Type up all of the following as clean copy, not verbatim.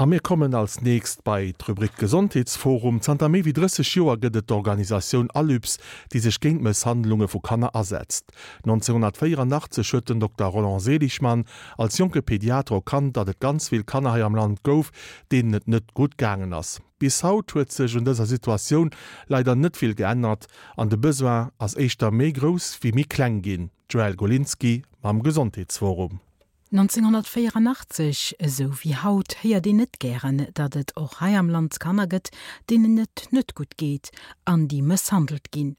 A mir kommen als nächst bei d'Rubrik Gesondheetsforum. Zanter méi wéi 30 Joer gëtt et d'Organisatioun Alyps, déi sech géint Mësshandlunge vu Kanner asetzt. 1984 huet den Dokter Roland Seligmann als jonke Pediater erkannt, datt et ganz vill Kanner hei am Land gouf, deenen et net gutt gaangen ass. Bis haut huet sech un dëser Situatioun leider net vill geännert an de Besoin ass éischter méi grouss wéi méi kleng ginn. D'Joëlle Golinski mam Gesondheetsforum. 1984, esou wéi haut, héiert een net gären, datt et och hei am Land Kanner gëtt, deenen et net gutt geet an déi mësshandelt ginn.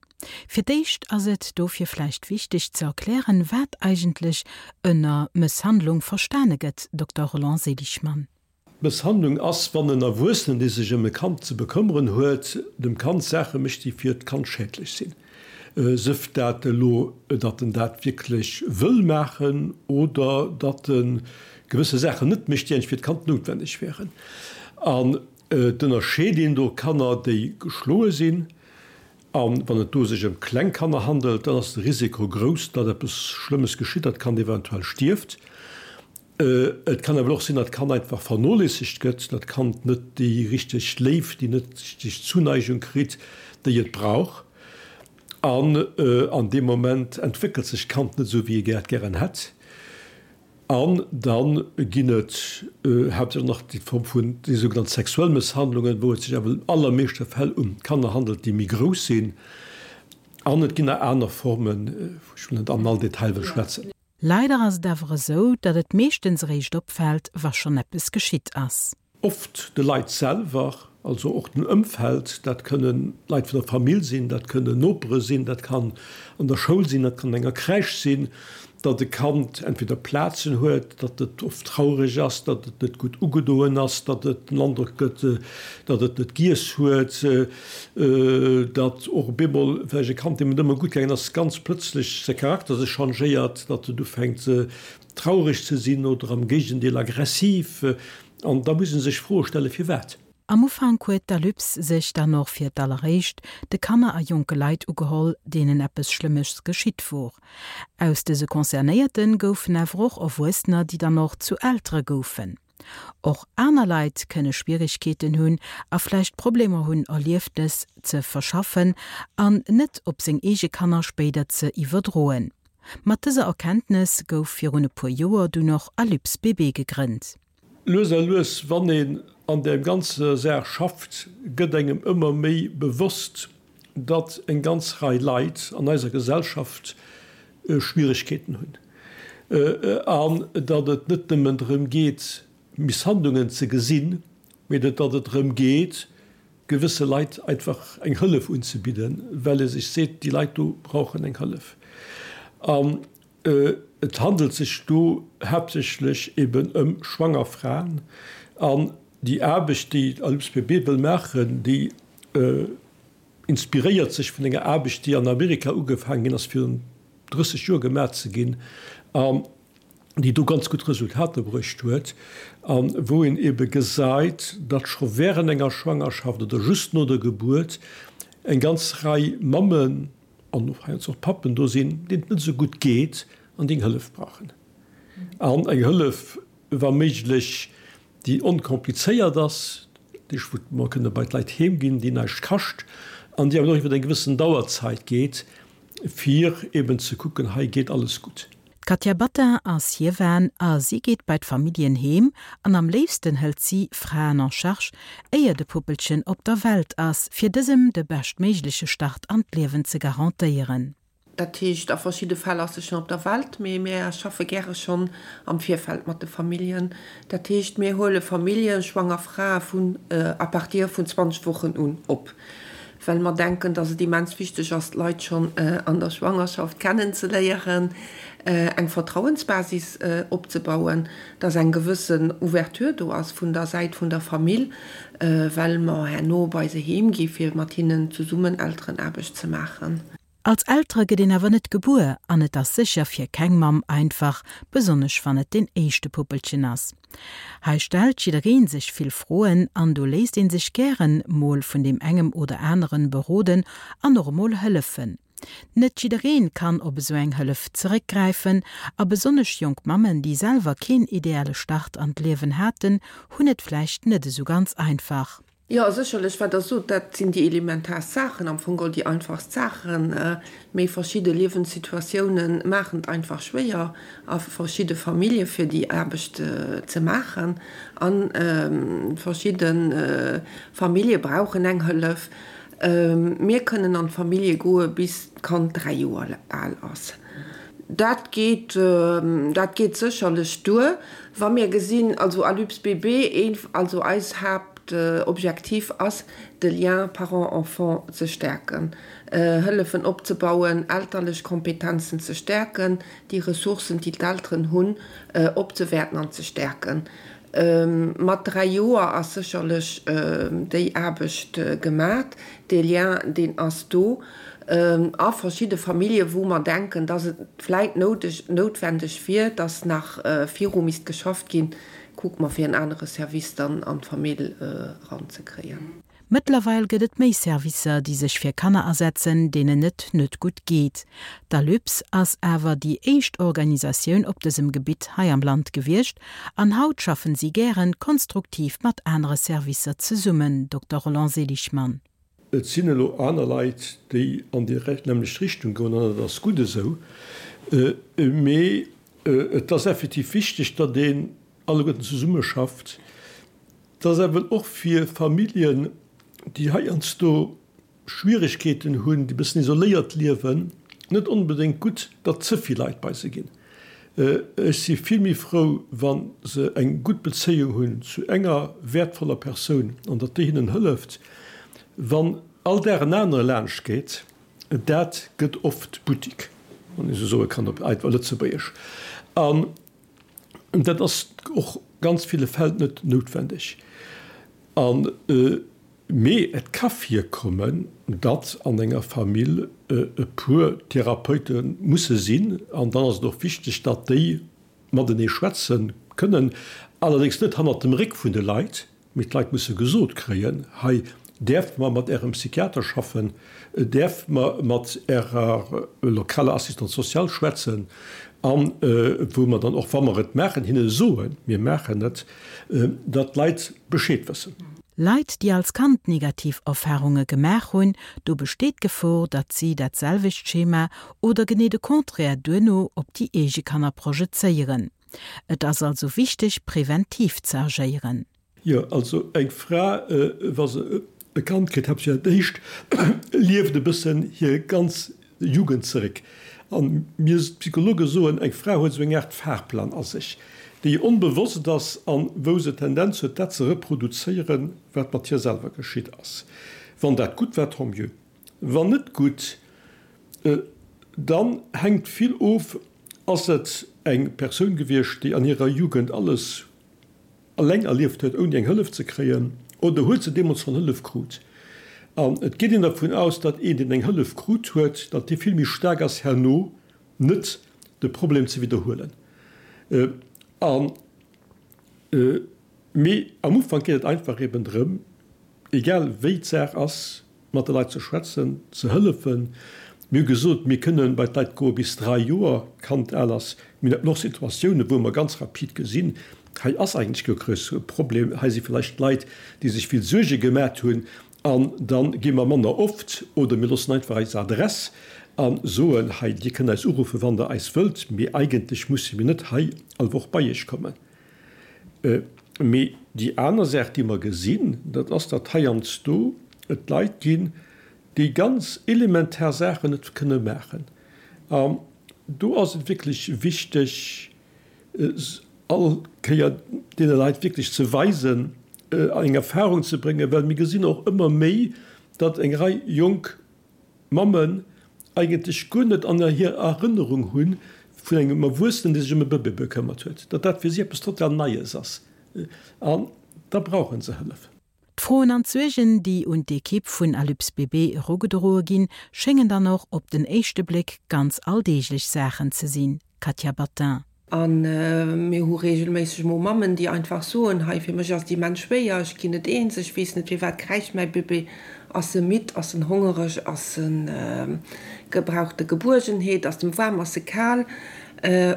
Fir d'éischt ass et dofir vläicht wichteg ze erklären, wat eigentlech ënner Mësshandlung verstane gëtt, Dokter Roland Seligmann. Mësshandlung ass, wann en Erwuessenen, dee sech ëm e Kand ze bekëmmeren huet, dem Kand Saache mécht, déi fir d'Kand schädlech sinn. Sëf dat elo, datt en dat wierklech wëll maachen oder datt e gewësse Saachen net mécht, déi eigentlech fir d'Kand noutwenneg wären. An et ënnerscheet een do Kanner, déi geschloe sinn, A wann et do sech ëm kleng Kanner handelt, dann ass de Risiko grouss, datt eppes Schlëmmes geschitt, datt d'Kand eventuell stierft. Et kann awer och sinn, datt d'Kand einfach vernoléissegt gëtt, datt d'Kand net déi richteg Léift, déi net richteg Zuneigung kritt, déi et brauch. An an deem Moment entwéckelt sech d'Kand net esou, wéi ee dat gären hätt. An da ginn et haaptsächlech nach déi Form vun déi sougenannt sexuell Mësshandlungen, wou et sech awer an allermeeschte Fäll ëm Kanner handelt, déi méi grouss sinn. An et ginn nach aner Formen, wou ech net an all Detail wëll schwätzen. Leider ass et awer esou, datt et meeschtens eréischt opfält, wa schonn eppes geschitt ass. Oft de Leit selwer, also och dem Ëmfeld, dat kënne Leit vun der Famill sinn, dat kënnen Nopere sinn, dat kann an der Schoul sinn, dat kann an enger Crèche sinn, datt e Kand entweder Plazen huet, datt et oft traureg ass, datt et net gutt ugedoen ass, datt et den Androck gëtt, datt et net giess huet, datt och op eemol vläicht e Kand, deem et ëmmer gutt gaangen ass, ganz plëtzlech säi Charakter sech changéiert, datt et ufänkt traureg ze sinn oder am Géigendeel aggressiv. An da muss ee sech Froe stellen, firwat. Am Ufank huet d'Alyps sech dann och fir d'alleréischt de Kanner a jonke Leit ugeholl, deenen eppes Schlëmmes geschitt wor. Aus dëse Concernéierte goufen awer och Erwuessener, déi dann och zu Eltere goufen. Och aner Leit kënne Schwierigkeeten hunn a vläicht Problemer hunn, Erlieftes ze verschaffen an net op seng eege Kanner spéider ze iwwerdroen. Mat dëser Erkenntnes gouf virun e puer Joer dunn och Alyps BB gegrënnt. Lues a lues, wann een an där ganzer Saach schafft, gëtt engem ëmmer méi bewosst, datt eng ganz Rei Leit an eiser Gesellschaft Schwieregkeeten hunn an datt et net nëmmen drëm geet, Misshandlungen ze gesinn, mee datt et drëm geet, gewësse Leit einfach eng Hëllef unzebidden, well ee sech seet, déi Leit do brauchen eng Hëllef. An et handelt sech do haaptsächlech eben ëm schwanger Fraen. An déi Aarbecht, déi d'ALUPSPB wëll maachen, déi inspiréiert sech vun enger Aarbecht, déi an Amerika ugefaangen ginn ass virun 30 Joer gemaach ze ginn. Déi do ganz gutt Resultater bruecht huet a wou een ebe gesäit, datt scho während enger Schwangerschaft oder just no der Gebuert eng ganz Rei Mammen an och heiansdo och Pappen do sinn, deenen et net esou gutt geet an déi eng Hëllef brauchen. An eng Hëllef, wa méiglech, déi onkomplizéiert ass, déi wou mer kënne bei d'Leit heem ginn, déi näischt kascht an déi awer och iwwer eng gewëssen Dauerzeit geet, fir eben ze kucken, hei geet alles gutt. D'Katia Battin ass Hiewan a si geet bei d'Familljen heem an am léifsten hëlt si Fraen en charge, éier de Puppelchen op der Welt ass, fir dësem de beschtméigleche Start an d'Liewen ze garantéieren. Dat heescht, a verschidde Fäll ass se schonn op der Welt, mee mir schaffe gäre schonn am Virfeld mat de Familljen. Dat heescht, mir huele Familljen, schwanger Frae vun à partir vun 20 Wochen un op. well mer denken, dass et immens wichteg ass, d'Leit schonn an der Schwangerschaft kennenzeléieren, eng Vertrauensbasis opzebauen, dass eng gewëssen Ouverture do ass vun der Säit vun der Famill, well mer herno bei se heem gi fir mat hinnen zesummen Elterenaarbecht ze maachen. Als Eltere gëtt een awer net gebuer an et ass sécher fir keng Mamm einfach, besonnesch wann et deen éischte Puppelchen ass. Hei stellt jiddereen sech vill Froen an do léisst een sech gären mol vun deem engem oder aneren beroden an och emol hëllefen. Net jiddereen kann op esou eng Hëllef zeréckgräifen a besonnesch jonk Mammen, déi selwer keen ideale Start an d'Liewen haten, hunn et vläicht net esou ganz einfach. Jo, sécherlech, wat Der sot, dat sinn déi elementaarst Saachen, am Fong geholl déi einfachst Saachen. Mee verschidde Liewenssituatiounen maachen et einfach schwéier a verschidde Famillje fir déi Aarbecht ze maachen. A verschidde Famillje brauchen eng Hëllef. Mir kënnen an d'Famillje goe bis d'Kand 3 Joer al ass. Dat geet, dat geet sécherlech duer. Wa mir gesinn, also Alyps BB, een, also eis Haaptobjektiv ass, de Lien parent-enfant ze stäerken, Hëllefen opzebauen, elterlech Kompetenzen ze stäerken, déi Ressourcen, déi d'Elteren hunn, opzewäerten an ze stäerken. Mat 3 Joer ass sécherlech déi Aarbecht gemat. Dee Lien, deen ass do. A verschidde Famillje wou mer denken, dass et vläit noutwendeg wier, dass nach viru misst geschafft ginn, kucke mer fir en anere Service dann an d'Famill eranzekréien. Mëttlerweil gëtt et méi Servicer, déi sech fir Kanner asetzen, deenen et net gutt geet. D'Alyps ass awer déi éischt Organisatioun op dësem Gebitt hei am Land gewiescht an haut schaffen si gären konstruktiv mat anere Servicer zesummen, Dokter Roland Seligmann. Et sinn elo aner Leit, déi an déi nämmlecht Richtung goen, an dat ass gutt esou. Mee et ass effektiv wichteg, datt een alleguerten zesummeschafft. Et ass awer och fir Familljen, déi heiansdo Schwieregkeeten hunn, déi e bëssen isoléiert liewen, net onbedéngt gutt, datt ze vill Leit bei se ginn. Ech si vill méi frou, wa se eng gutt Bezéiung hunn zu enger wäertvoller Persoun an datt déi hinnen hëlleft. Wann all Dag en anere laanscht geet, dat gëtt oft Buttik, wann ee sou soe kann op einfach Lëtzebuergesch. An Dat ass och ganz ville Fäll net noutwendeg. An, mee et ka virkommen, datt an enger Famill e puer Therapeute musse sinn. An dann ass et och wichteg, datt déi matenee schwätze kënnen, allerdéngs net hannert dem Réck vun de Leit, Mee d'Leit musse gesot kréien, hei däerft mer mat Ärem Psychiater schaffen, däerft mer mat Ärer lokaler Assistante sociale schwätzen, a wou mer dann och, wa mer et maachen, hinne soen, mir maachen et, datt d'Leit Bescheed wëssen. Leit, déi als Kand negativ Erfarunge gemaach hunn, do besteet d'Gefor, datt si dat selwecht Schema oder genee de Contraire duerno op déi eege Kanner projezéieren. Et ass also wichteg, preventiv ze agéieren. Jo, also eng Fra, wa se e Kand kritt, haaptsächlech dat éischt, lieft e bëssen hir ganz Jugend zeréck. A mir Psychologe soen, eng Fra huet esou eng Aart Fahrplan a sech, déi onbewosst ass an wou se d'Tendenz huet, dat ze reproduzéieren, wat mat hir selwer geschitt ass. Wann dat gutt war, tant mieux. Wann net gutt, dann hänkt vill of, Ass et eng Persoun gewiescht, déi an hirer Jugend alles eleng erlieft huet, ouni eng Hëllef ze kréien, oder huet se deemools schonn Hëllef krut? An et geet een dervun aus, datt een, deen eng Hëllef krut huet, datt dee vill méi staark ass herno net de Problem ze widderhuelen. A mee am Ufank geet et einfach eben drëm, egal wéi d'Saach ass, mat de Leit ze schwätzen, ze hëllefen. Mir hu gesot, mir kënnen bei d'Leit goe bis 3 Joer d'Kand al ass. Mir haten och Situatiounen, wou mer ganz rapid gesinn, hei ass eigentlech guer kee Problem, hei si vläicht Leit, déi sech vill Suerge gemat hunn, an da gi mer manner oft oder mir loossen einfach eis Adress a soen, hei, Dir kënnt eis uruffen, wann Der eis wëllt, mee eigentlech musse mir net hei all Woch bei Iech kommen. Mee déi aner Saach, déi mer gesinn, dat ass, datt heiansdo et Leit ginn, déi ganz elementar Saachen net kënne maachen. An do ass et wierklech wichteg, all Kéier deene Leit wierklech ze weisen, eng Erfahrung ze bréngen, well mir gesinn och ëmmer méi, datt eng Rei jonk Mammen eigentlech guer net an hir Erënnerung hunn vun engem Erwuessenen, dee sech ëm e Bëbee bekëmmert huet, datt dat fir si eppes total Neies ass an da brauche se Hëllef. D'Froen an d'Suergen, déi un d'Ekipp vun Alyps BB erugedroe ginn, schéngen dann och op den éischte Bléck ganz alldeeglech Saachen ze sinn. Katja Battin. A mir hu reegelméisseg mol Mammen, déi einfach soen, hei fir mech ass et immens schwéier, ech ginn net eens, ech weess net firwat kräischt mäi Bébé, ass e midd, ass en hongereg, ass en, gebraucht e Gebuergenheet, ass em waarm, ass e kal,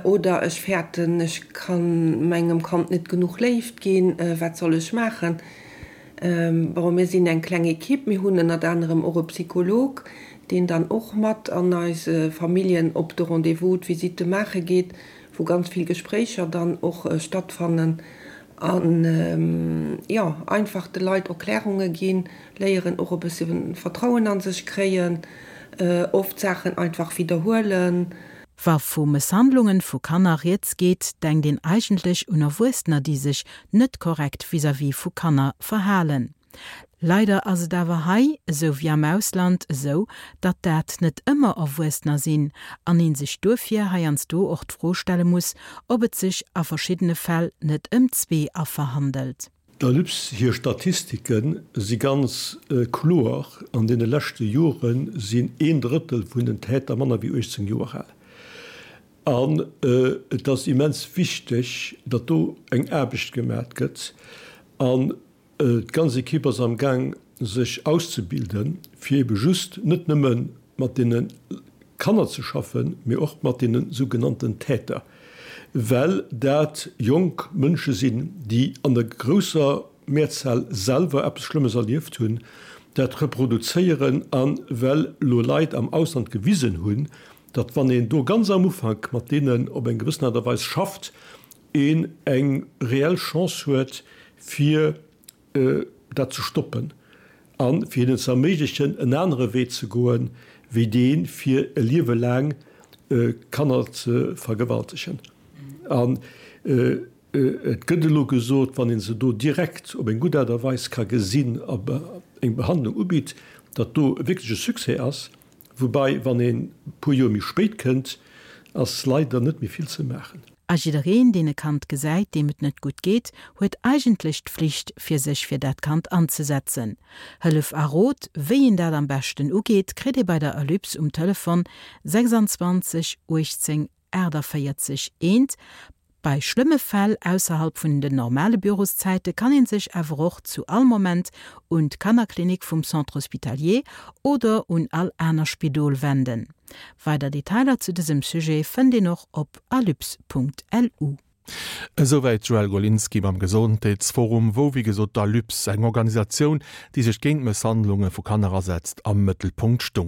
oder ech fäerten, ech ka mengem Kand net genuch Léift ginn, wat soll ech maachen? Bon, mir sinn eng kleng Equipe, mir hunn ënnert anerem och e Psycholog, deen dann och mat an eise Familljen op de Rendez-vous, d'Visitte maache geet, wou ganz vill Gespréicher dann och stattfannen an, jo, einfach de Leit Erklärunge ginn, léieren och e bësse Vertrauen a sech kréien, oft Saachen einfach widderhuelen. Wa vu Mësshandlungen vu Kanner rieds geet, denkt een eigentlech un Erwuessener, déi sech net korrekt vis-à-vis vu Kanner verhalen. Leider ass et awer hei, esou wéi am Ausland, esou, datt dat net ëmmer Erwuessener sinn an ee sech duerfir heiansdo och d'Fro stelle muss, ob et sech a verschiddene Fäll net ëm zwee Affer handelt. Der LUPS hir Statistike si ganz kloer, An deene leschte Jore sinn een Drëttel vun den Täter manner wéi 18 Joer al. An et ass immens wichteg, datt do eng Aarbecht gemat gëtt. An d'ganz Ekipp ass am Gaang sech auszebilden, fir ebe just net nëmme mat deene Kanner ze schaffen, mee och mat deene sougenannten Täter, well dat jonk Mënsche sinn, déi an der grousser Mehrzahl selwer eppes Schlëmmes erlieft hunn, dat reproduzéieren a well elo Leit am Ausland gewisen hunn, datt wann een do ganz am Ufank mat deenen op eng gewëssen Aart a Weis schafft, een eng reell Chance huet, fir dat ze stoppen a fir hinnen ze erméiglechen, en anere Wee ze goen, wéi dee fir e Liewe laang Kanner ze vergewaltegen. An et gëtt elo gesot, wann ee se do direkt op eng gutt Aart a Weis ka gesinn a eng Behandlung ubitt, datt do wierklech e Succès ass. Woubei, wann een e puer Joer méi spéit kënnt, ass leider net méi vill ze maachen. A jiddereen, deen e Kand gesäit, deem et net gutt geet, huet eigentlech d'Flicht, fir sech fir dat Kand anzesetzen. Hëllef a Rot, wéi een dat am beschten ugeet, kritt ee bei der Alyps um Telefon 26 18 48 1. Bei schlëmme Fäll ausserhalb vun den normale Büroszäite kann een sech awer och zu all Moment un d'Kannerklinik vum Centre Hospitalier oder un all aner Spidol wenden. Weider Detailer zu dësem Sujet fënnt een och op alyps.lu. Esouwäit d'Joëlle Golinski mam Gesondheetsforum, wou wéi gesot d'Alyps, eng Organisatioun, déi sech géint Mësshandlunge vu Kanner asetzt, am Mëttelpunkt stung.